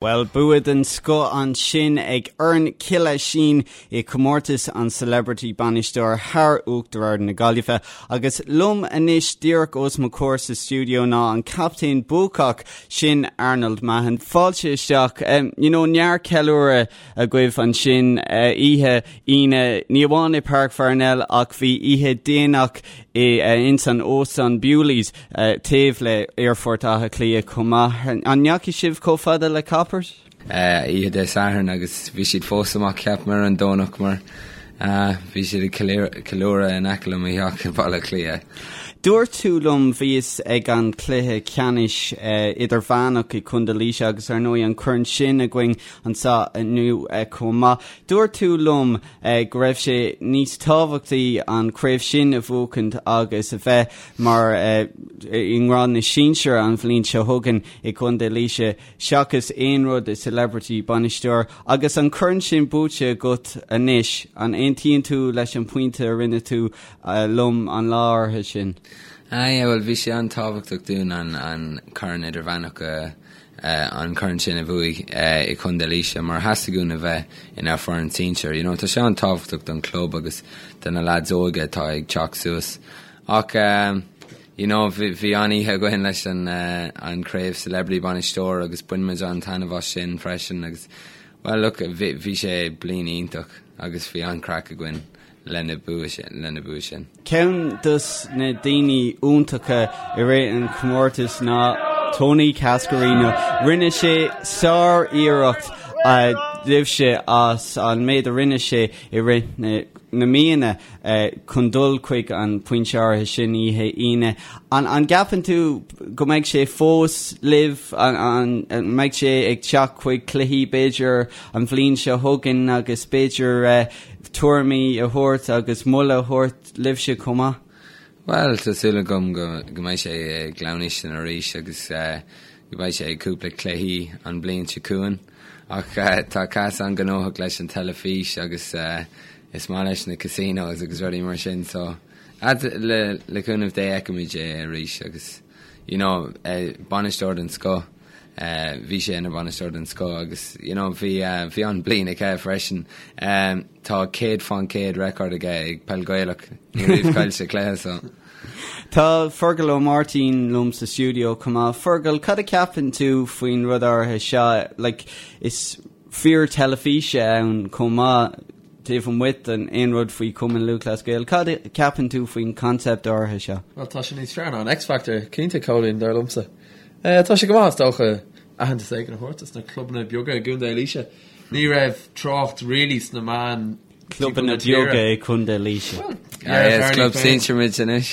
Bhuel, bua den scoth ansin ag foireann Chill Oisín i comórtas an Celebrity Bainisteoir thar Uachtar Ard na Gaillimhe. Agus liom anois díreach os mo chomhair sa stiúideo ná an captaen buacach sin Arnold Mahon. Fáilte isteach. You know, neart ceiliúradh agaibh ansin oíche Aoine, ní amháin i Páirc Pharnell ach bhí oíche déanach i ins an óstán Bewley's taobh le Aerfort Átha Cliath chomh maith. An ndeachaigh sibh chomh fada le Coppers? Oíche Dé Sathairn agus bhí siad fós amach ceapaim ar an Domhnach mar bhí siad ag ceiliúradh in aice le mo theach i Baile Átha Cliath. Dúirt tú liom, bhíos ag an cluiche ceannais idirmheánach i Contae Laoise agus ar ndóigh an corn sin againn anseo inniu chomh maith. Dúirt tú liom go raibh sé níos tábhachtaí an chraobh sin a bhuachaint agus a bheith mar i ngrád na sinsear an bhliain seo chugainn i gContae Laoise seachas aon rud i Celebrity Bainisteoir. Agus an corn sin buaite agat anois, an aontaíonn tú leis an pointe a rinne tú liom an lá áirithe sin? Ah yeah, bhuel bhí sé an-tábhachtach dúinn an corn idirmheánach a an corn sin a bhuaigh i Contae Laoise mar theastaigh uainn a bheith inár foireann sinsir. You know, tá sé an-tábhachtach don club agus do na lads óga atá ag teacht suas. Ach you know, bhí bhí an-oíche againn leis an an craobh Celebrity Bainisteoir agus bhain muid an-taitneamh as sin freisin agus well look, bhí bhí sé bliain iontach agus bhí an-craic againn. lena bua sin. Ceann dos na daoine iontacha i rith an chomórtais ná Tony Cascarino. Rinne sé sár-iarracht libhse as an méid a rinne sé i rith na míonna chun dul chuig an pointe áirithe sin oíche Aoine. An gceapann tú go mbeidh sé fós libh? An mbeidh sé ag teacht chuig cluichí b'fhéidir an bhliain seo chugainn agus b'fhéidir tuairimí a thabhairt agus moladh a thabhairt libhse chomh maith? Bhuel, tá súil agam go mbeidh sé i gClann Uistin arís agus go mbeidh sé ag cúpla cluichí an bhliain seo chugainn. Ach tá Cas an-ghnóthach leis an teilifís agus is maith leis na casinos agus rudaí mar sin so le cúnamh Dé feicfimid é arís agus you know bainisteoir den scoth. Bhí sé ina bhainisteoir den scoth agus you know bhí bhí an-bliain aige freisin. Tá 100% record aige ag peil Gaelach, ní raibh chaill sé cluiche so. Tá Fergal Ó Máirtín liom sa stiúideo chomh maith. Fergal, cad a ceapann tú faoin rud áirithe seo? Like, is fear teilifíse ann chomh maith taobh amuigh den aon rud faoi Chumann Lúthchleas Gael. Cad a ceapann tú faoin concept áirithe seo? Bhuel, tá sé níos fearr ná an X-Factor, cinnte, Cóilín, dar liomsa. Tá sé go maith, is dócha, aitheantas éigin a thabhairt dos na clubanna beaga i gContae Laoise. Ní raibh trácht really sna meáin Clubanna beaga i gContae Laoise. Well, yeah, is club sinsir muid anois.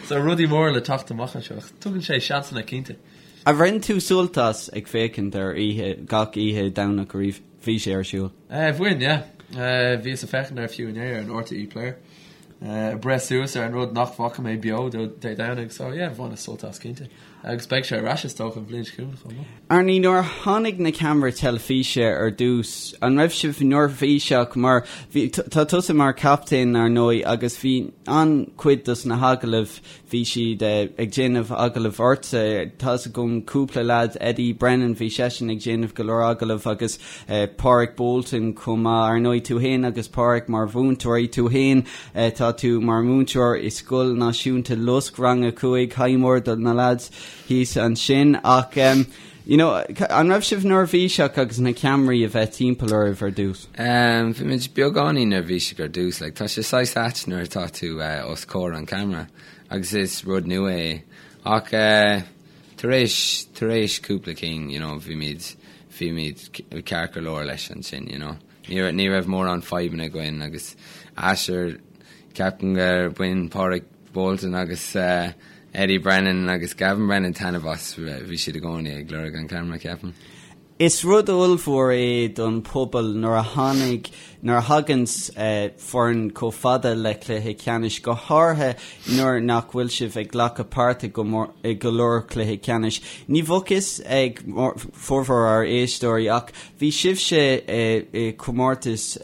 So rudaí móra le teacht amach anseo. Tugann sé seansanna cinnte. Ar bhain tú sult as ag féachaint ar oíche, gach oíche Domhnach a bhí sé ar siúl? Bhain, yeah. Bhíos ag féachaint air fiú inné ar an RTÉ Player. Ag breith suas ar an rud nach bhfaca mé beo Dé Domhnaigh so yeah, bhaineas sult as cinnte. Agus beidh sé ar ais is dócha an bhliain seo chugainn chomh maith. Arnie, nuair a tháinig na ceamaraí teilifíse ar dtús, an raibh sibh neirbhíseach mar bhí, tá tusa mar chaptaen ar ndóigh agus bhí an-chuid dos na hagallaimh Bhí siad ag déanamh agallamh ortsa. Tá's agam cúpla leaid, Eddie Brennan, bhí seisean ag déanamh go leor agallamh agus Pádraig Bolton chomh maith. Ar ndóigh, tú fhéin agus Pádraig mar mhúinteoirí, tú fhéin, tá tú mar mhúinteoir i Scoil Náisiúnta Lusc, rang a 5, haidh mór do na leaids thíos ansin. Ach you know, an raibh sibh neirbhíseach agus na ceamaraí a bheith timpeall oraibh ar dtús? Bhí muid beagáinín neirbhíseach ar dtús, like, tá sé saghas ait nuair atá tú os comhair an camera agus is rud nua é. Ach tar éis, tar éis cúpla cinn, you know, bhí muid, bhí muid ceart go leor leis ansin, you know. Ní raibh, ní raibh mórán fadhbanna againn agus sure, ceapaim gur bhain Pádraig Bolton agus Eddie Brennan agus Gavin Brennan taitneamh as, bhí siad i gcónaí ag lorg an camera, ceapaim. Is rud ollmhór é don phobal nuair a tháinig, nuair a thaganns foireann chomh fada le cluiche ceannais, go háirithe nuair nach bhfuil sibh ag glacadh páirt i go leor cluiche ceannais. Ní bheadh fhios ag formhór ár éisteoirí ach bhí sibhse i comórtas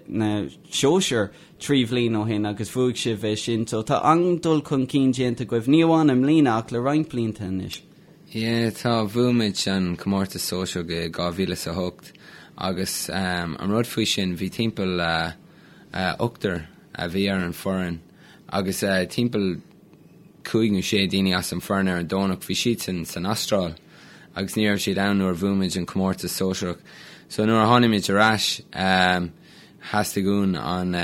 na sóisear 3 bhliain ó shin agus bhuaigh sibh é sin so tá an-dul chun cinn déanta agaibh, ní amháin i mbliana ach le roinnt blianta anois. Yeah, tá, bhuaigh muid an comórtas sóisearach i 2008 agus an rud faoi sin, bhí timpeall ochtar a bhí ar an foireann agus timpeall cúig nó sé daoine as an foireann ar an Domhnach, bhí siadsan san Astráil agus ní raibh siad ann nuair a bhuaigh muid an comórtas sóisearach. So nuair a tháinig muid ar ais, theastaigh uainn an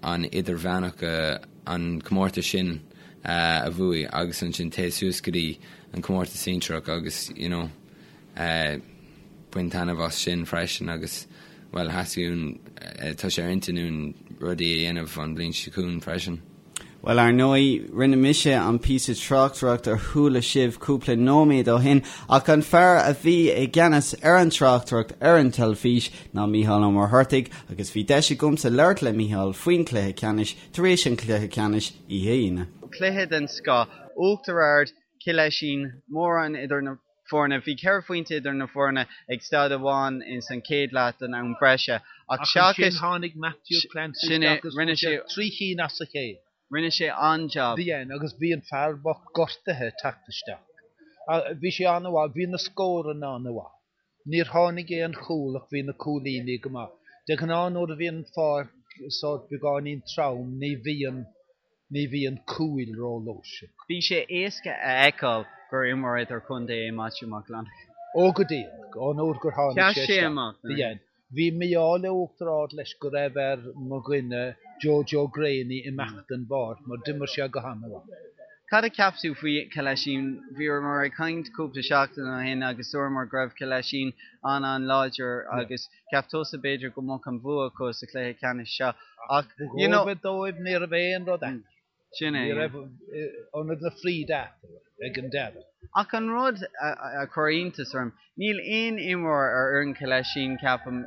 an idirmheánach, an comórtas sin a bhuaigh agus ansin téigh suas go dtí an comórtas sinsearach agus you know bain taitneamh as sin freisin agus bhuel theastaigh uainn, tá sé ar intinn uainn rudaí a dhéanamh an bhliain seo chugainn freisin. Bhuel, ar ndóigh, rinne mise an píosa tráchtaireachta a chuala sibh cúpla nóiméad ó shin, ach an fear a bhí i gceannas ar an tráchtaireacht ar an teilifís ná Mícheál Ó Muircheartaigh, agus bhí deis agamsa labhairt le Mícheál faoin chluiche ceannais tar éis an chluiche ceannais oíche Aoine. Cluiche den scoth, Uachtar Ard, Cill Oisín, mórán idir na foirne. Bhí ceithre phointe idir na foirne ag staid amháin ins an chéad leath den am breise ach seachas ansin tháinig Matthew Clancy sin é, isteach agus rinne sé trí chinn as a chéile. Rinne sé an-jab. Bhí agus bhí an fear bocht gortaithe ag teacht isteach. Bhí sé an-mhaith, bhí na scóranna an-mhaith. Níor tháinig aon chúl ach bhí na cúilíní go maith. De ghnáth nuair a bhíonn an pháirc sórt beagáinín trom ní bhíonn ní bhíonn cúil rófhlúirseach. Bhí sé éasca a fheiceáil gur imreoir idirchontae é Maitiú Mac Fhlannchadha. Ó go díreach, ón uair gur tháinig sé isteach. Sheas sé amach. Bhí. Bhí mí-ádh le Uachtar Ard leis go raibh ar mo dhuine Joe Joe Greaney imeacht den bpáirc mar d'imir sé go han-mhaith. Cad a cheap tú faoi Cill Oisín? Bhíomar ag caint cúpla seachtain ó shin agus dúramar go raibh Cill Oisín an-an-láidir agus Cheap tusa b'fhéidir go mbeadh an bua acu sa chluiche ceannais seo ach you know. Ba dhóibh ní raibh aon rud eatarthu. Sin é. Ní raibh ionad na fríde eatarthu ag an deireadh. Ach an rud a chuir iontas orm, níl aon imreoir ar fhoireann Chill Oisín, ceapaim,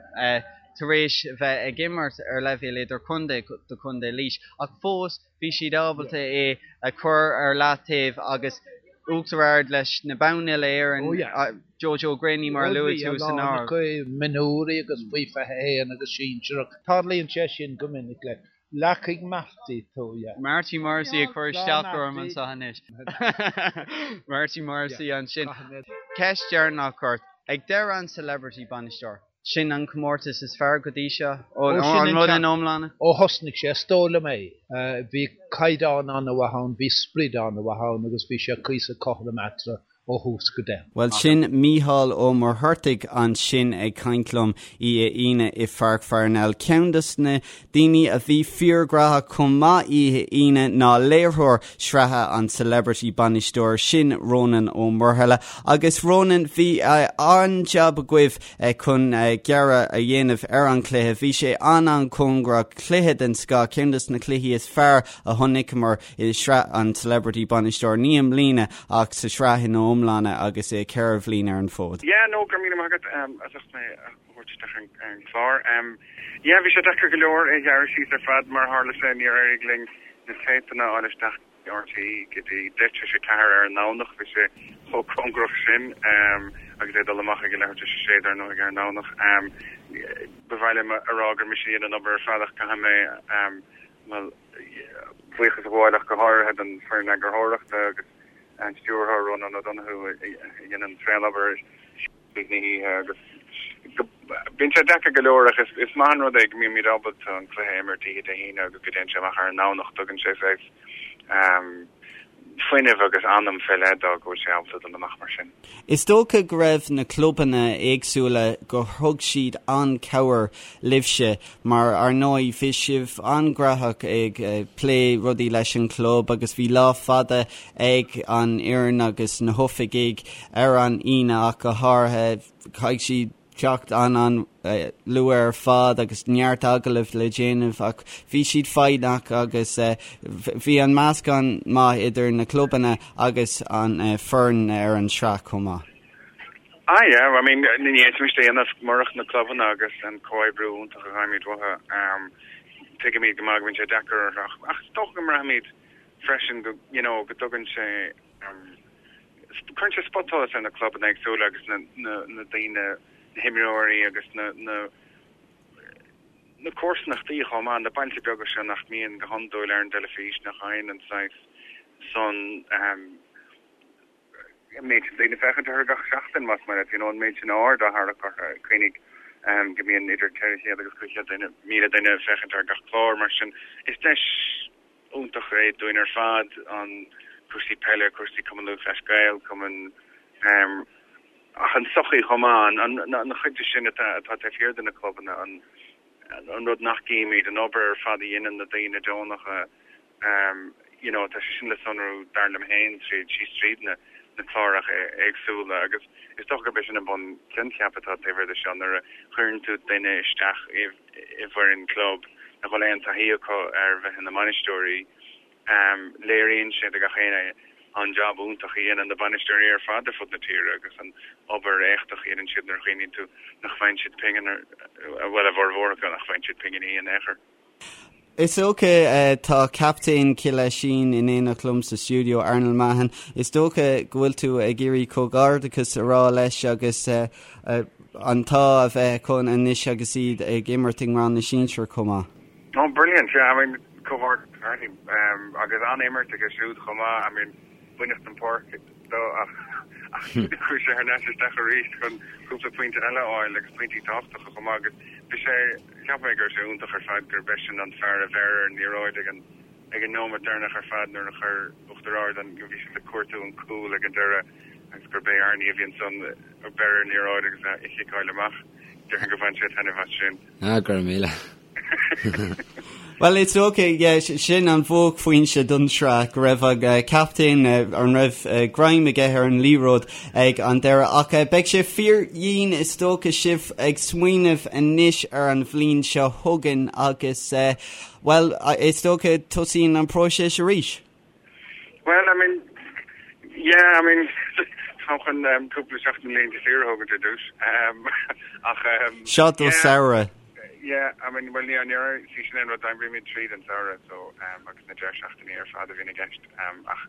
tar éis bheith ag imirt ar leibhéal idirchontae do Chontae Laois ach fós bhí siad ábalta é a chur ar leataobh agus Uachtar Ard leis na boinn uile-Éireann, Joe Joe Greaney mar a luaigh tú san áireamh. Mionúirí agus faoi 21 agus sinsearach. Tarlaíonn sé sin go minic le leacaigh Marty tú, yeah. Marty Morrissey ag cur isteach orm anseo anois. Marty Morrissey ansin. Ceist dheireanach ort. Ag deireadh an Celebrity Bainisteoir. Sin an comórtas is fearr go dtí seo, an rud ina iomláine? Ó thosnaigh sé, is dóigh liom é. Bhí caighdeán an-mhaith ann, bhí sprid an-mhaith ann agus bhí sé cuíosach cothrom eatarthu ó thús go deireadh. Bhuel, sin Mícheál Ó Muircheartaigh ansin ag caint liom oíche Aoine i Pháirc Pharnell. Ceann dos na daoine a bhí fíorghnóthach chomh maith oíche Aoine ná léiritheoir sraithe an Celebrity Bainisteoir, sin Rónán Ó Muirthile. Agus Rónán, bhí an-jab agaibh chun gearradh a dhéanamh ar an chluiche. Bhí sé an-an-chóngarach, cluiche den scoth, ceann dos na cluichí is fearr a chonaiceamar i sraith an Celebrity Bainisteoir, ní i mbliana ach sa sraith ina iomláine agus é 4 bhliain ar an bhfód. Yeah, no, go raibh míle maith agat as ucht mé a thabhairt isteach ar an chlár. Yeah, bhí sé deacair go leor é a ghearradh síos ar fad, mar a tharla sé níor éirigh linn na téipeanna a fháil isteach go RTÉ go dtí 4:10 ar an nDomhnach, bhí sé chomh cóngarach sin agus é ag dul amach ag a leathuair tar éis a sé dar ndóigh ar an nDomhnach. Ba mhaith liom a rá gur mise a dhein an obair ar fad ach caithfidh mé, bhuel, buíochas a ghabháil ach go háirithe don foireann eagarthóireachta agus an stiúrthóir Rónán O'Donoghue a dhein an tréan-obair tríd na hoíche agus bíonn sé deacair go leor ach is maith an rud é go mbímid ábalta an cluiche a imirt oíche Dé hAoine agus go dtéann sé amach ar an nDomhnach. Tugann sé saghas fuinneamh agus anam fé leith dó go bhfuil sé ábalta dul amach mar sin. Is dócha go raibh na clubanna éagsúla gur thug siad an-chabhair libhse mar ar ndóigh bhí sibh an-ghnóthach ag plé rudaí leis an chlub agus bhí lá fada ag an fhoireann agus na hoifigigh ar an Aoine ach go háirithe. Chaithfidh siad teacht an-an-luath ar fad agus neart agallamh le déanamh ach bhí siad foighneach agus bhí an meascán maith idir na clubanna agus an foireann ar an tsraith chomh maith. Ah yeah, I mean ní fhéadfaimis é a dhéanamh murach na clubanna agus an comhoibriú iontach a fhaighimid uathu. Tuigimid go maith go mbíonn sé deacair orthu ach is dócha go mbraithimid freisin go you know go dtugann sé cuireann sé spotsholas ar na clubanna éagsúla agus na na na daoine, na himreoirí agus na na na comharsanachtaí chomh maith, na bailte beaga seo nach mbíonn go hiondúil ar an dteilifís, nach fhaigheann an saghas san. an méid sin daoine ag féachaint orthu gach seachtain, más maith leat, you know, an méid sin aird á tharrac orthu. Cuimhnigh go mbíonn idir 400 agus 500 duine, 1,000 duine ag féachaint ar gach clár, mar sin is deis iontach é dúinn ar fad an cúrsaí peile, cúrsaí Cumann Lúthchleas Gael, Cumann ach an tsochaí chomh maith, an chuid de sin atá taobh thiar de na clubanna, an rud nach gcímid, an obair ar fad a dhéanann na daoine deonacha, you know, tá sé sin le sonrú, dar liom féin, tríd, síos tríd na na cláracha éagsúla agus is dócha gurb é sin an bun-choincheap atá taobh thiar de seo, nuair a chuireann tú duine isteach i i bhfoireann club nach bhfuil aon taithí acu ar bheith ina mbainisteoirí, léiríonn sé do gach éinne an jab iontach a dhéanann na bainisteoirí ar fad ar fud na tíre agus an obair éachtach a dhéanann siad nuair a chuimhníonn tú nach bhfaigheann siad pingin, bhuel, a bhformhór acu, nach bhfaigheann siad pinginí in aon chor. Is dócha, tá captaen Chill Oisín in éineacht liom sa stiúideo, Arnold Mahon. Is dócha go bhfuil tú ag iarraidh comhghairdeachas a rá leis agus an t-ádh a bheith acu anois agus iad ag imirt i ngrád na sinsear chomh maith. Oh brilliant, yeah, I mean comhghairdeas Arnie agus an-imirt aige siúd chomh maith, I mean baineadh den pháirc dó ach chuaigh sé thar n-ais isteach arís chun cúpla pointe eile a fháil agus pointí tábhachtacha chomh maith agus bhí sé, cheap mé go raibh sé iontach ar fad gurb eisean an fear a bheir ar an liathróid ag an ag an nóiméad deireanach ar fad nuair a chuir Uachtar Ard an, bhí siad ag cuartú an cúl ag an deireadh agus gurb é Arnie a bhí ansan a bheir ar an liathróid agus a chiceáil amach. Déarfainn gur bhain sé taitneamh as sin. Ah, go raibh míle. Well, it's okay, yeah, sin an bhuaicphointe don sraith, go raibh an captaen, an raibh greim aige ar an liathróid ag an deireadh. Ach beidh sé fíor-dhian is dócha sibh ag smaoineamh anois ar an bhliain seo chugainn agus, bhuel, is dócha tosaíonn an próiseas arís. Well, I mean, yeah, I mean, tá chun um, cúpla seachtain laethanta saoire a thógaint ar dtús. Um, ach, um, Seo do yeah, samhradh. Yeah, I mean, well, ní ní sí sin an rud oibrímid tríd an samhradh, so, um, agus na deireadh seachtainí ar fad a bhíonn i gceist. Um, ach,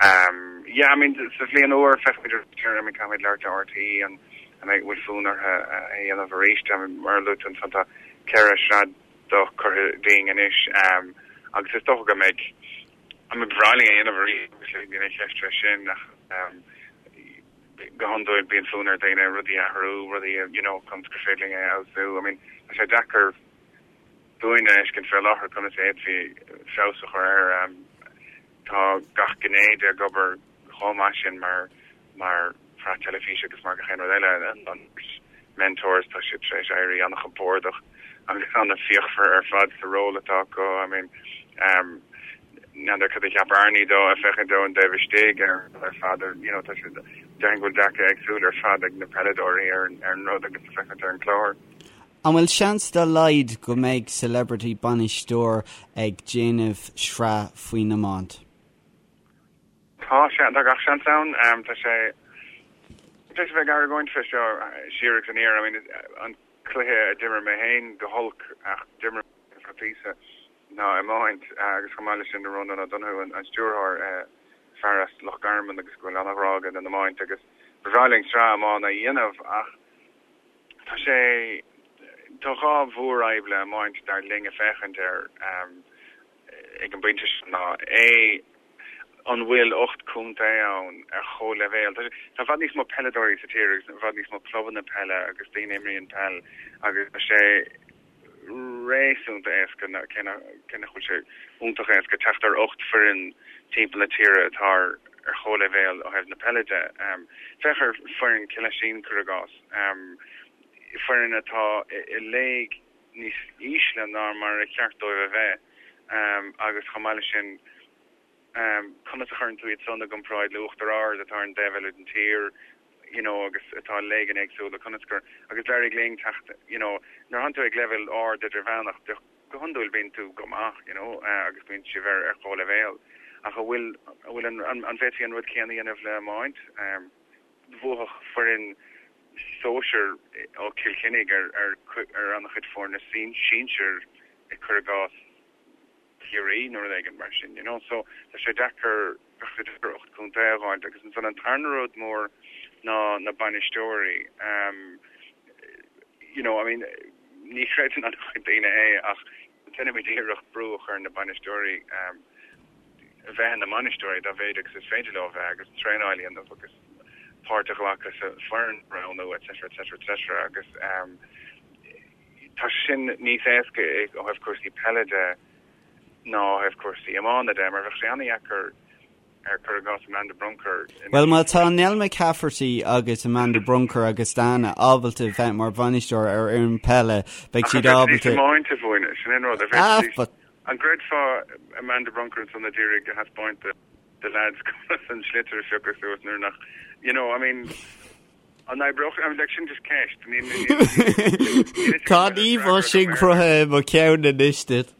um, yeah, I mean, sa bhliain úr feicfimid ar I mean, caithfimid labhairt le RTÉ an an mbeidh bhfuil fonn orthu a dhéanamh arís. I mean, mar a luaigh tú ansan tá ceithre shraith do curtha dínn anois agus is dócha go mbeidh I mean ba bhreá linn é a dhéanamh arís obviously níl aon cheist fé sin ach go hiondúil bíonn fonn ar dhaoine rudaí a athrú, rudaí a you know conas gur féidir linn é a fheabhsú. I mean tá sé deacair dúinn a fheiscint fé láthair conas a fhéadfaí feabhas a chur air. Tá gach gné de ag obair chomh maith sin mar mar shraith teilifíse agus mar gach aon rud eile. An mentors, tá siad tar éis éirí an-chompordach agus an-fhíochmhar ar fad sa ról atá acu. I mean, n'fheadar cad a cheap Arnie dó ag féachaint ón dtaobh istigh ar ar fad ar you know tá siad déarfainn go bhfuil dearcadh éagsúil ar fad ag na peileadóirí ar ar an rud agus ag féachaint ar an chlár. An bhfuil seans dá laghad go mbeidh Celebrity Bainisteoir ag déanamh sraith faoin iomáint? Tá sé, tá gach seans ann. Tá sé tar éis a bheith ag argóint fé seo siar agus aniar. I mean, an cluiche a d'imir mé féin go holc ach d'imir mé ar feadh píosa ná iomáint agus chomh maith leis sin Rónán Ó Donoghue an stiúrthóir, fear as Loch Garman agus go bhfuil an-ghrá aige don iomáint agus ba bhreá linn sraith iomána a dhéanamh ach tá sé, tá dhá mhórfhadhb le iomáint dar linn ag féachaint air ag an bpointe seo ná A, an bhfuil 8 contae ann ar chomhleibhéal? Tá i bhfad níos mó peileadóirí sa tír agus i bhfad níos mó clubanna peile agus daoine a imríonn peil agus tá sé réasúnta éasca, cé nach bhfuil sé iontach éasca, teacht ar 8 foireann timpeall na tíre atá ar chomhleibhéal ó thaobh na peile de. Féach ar foireann Cill Oisín, cuir i gcás, foireann atá i léig níos ísle ná mar a cheart dóibh a bheith agus chomh maith leis sin conas a chuireann tú iad san i gcomparáid le Uachtar Ard atá ar an dtaobh eile den tír you know agus atá i léigeanna éagsúla conas gur agus d'éirigh linn teacht you know nuair atánn tú ag leibhéal ard idirmheánach de go hiondúil bíonn tú go maith you know agus bíonn sibh ar ar chomhleibhéal ach an bhfuil an bhfuil an an bhféadfaí an rud céanna a dhéanamh le iomáint? Bhuafadh foireann sóisir ó Chill Chainnigh ar ar an-chuid foirne sinsir cuir i gcás Ciarraí nó rud éigin mar sin, you know. So tá sé deacair, bheadh sé deacair 8 contae a dh'fháilt agus ansan an tarna rud mór ná na bainisteoirí. You know, I mean, ní chreideann an-chuid daoine é ach déanaimid iarracht brú a chur ar na bainisteoirí. bheith ina mbainisteoirí dá mhéad agus is féidir leo a bheith agus traenáil a dhéanamh agus páirt a ghlacadh sa foireann roghnú etc etc etc agus tá sin níos éasca ó thaobh cúrsaí peile de ná ó thaobh cúrsaí iomána de mar bheadh sé an-dheacair ar cuir i gcás Amanda Brunker Bhuel má tá Nell McCafferty agus Amanda Brunker agus Dana ábalta bheith mar bhainisteoir ar fhoireann peile beidh siad ábalta. Iomáint a mhúineadh, sin an rud. Ah, but An gcreidfeá Amanda Brunker ansan a d'iarraidh a thaispeáint do leaids conas an sliotar a phiocadh suas nuair nach, you know, I mean, an oibreodh, I mean, like, sin just ceist. Níl, níl, níl fhios agam Tá an íomhá sin cruthaithe i mo cheann anois duit.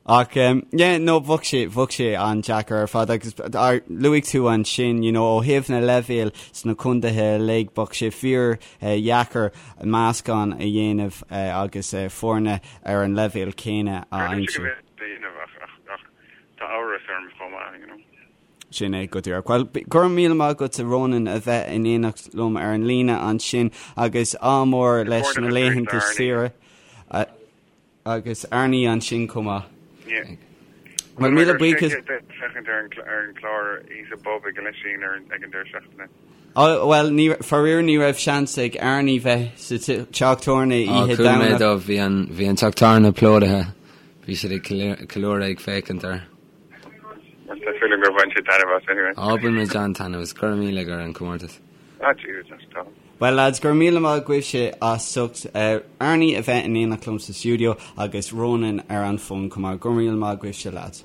Ach um, yeah, no, bheadh sé, bheadh sé an-deacair ar fad agus ar, luaigh tú ansin, you know, ó thaobh na leibhéil sna contaetha uilig, bheadh sé fíor eh, dheacair meascán a dhéanamh eh, agus eh, foirne ar an leibhéal céanna a Creidimse go aimsiú. bhféadfaí a dhéanamh ach, ach, ach tá amhras orm chomh maith, you know. Sin é go díreach. Bhuel, go raibh míle maith agat a Ronan a bheith in éineacht liom ar an líne ansin agus ádh mór leis na laethanta saoire. Agus Arnie ansin chomh maith. Yeah. Bhuel, míle buíochas. Féachaint ar an chlár Íosa Bob ag an Lisín ar ag an deireadh seachtaine. Oh, bhuel, ní, faraor ní raibh seans ag Arnie bheith sa teach tábhairne oíche Chuala mé dó, bhí an, bhí an teach tábhairne plódaithe. Bhí siad ag ceiliúradh ag féachaint air. Tá súil agam gur bhain siad taitneamh as anyway. Á, bhain muid an-taitneamh as. Go raibh míle ar an comórtas. Ah, Jesus, that's tough. Bhuel lads, go raibh míle maith agaibhse as ucht Arnie a bheith in éineacht liom sa stiúideo agus Ronan ar an bhfón chomh maith. Go raibh míle maith agaibhse lads.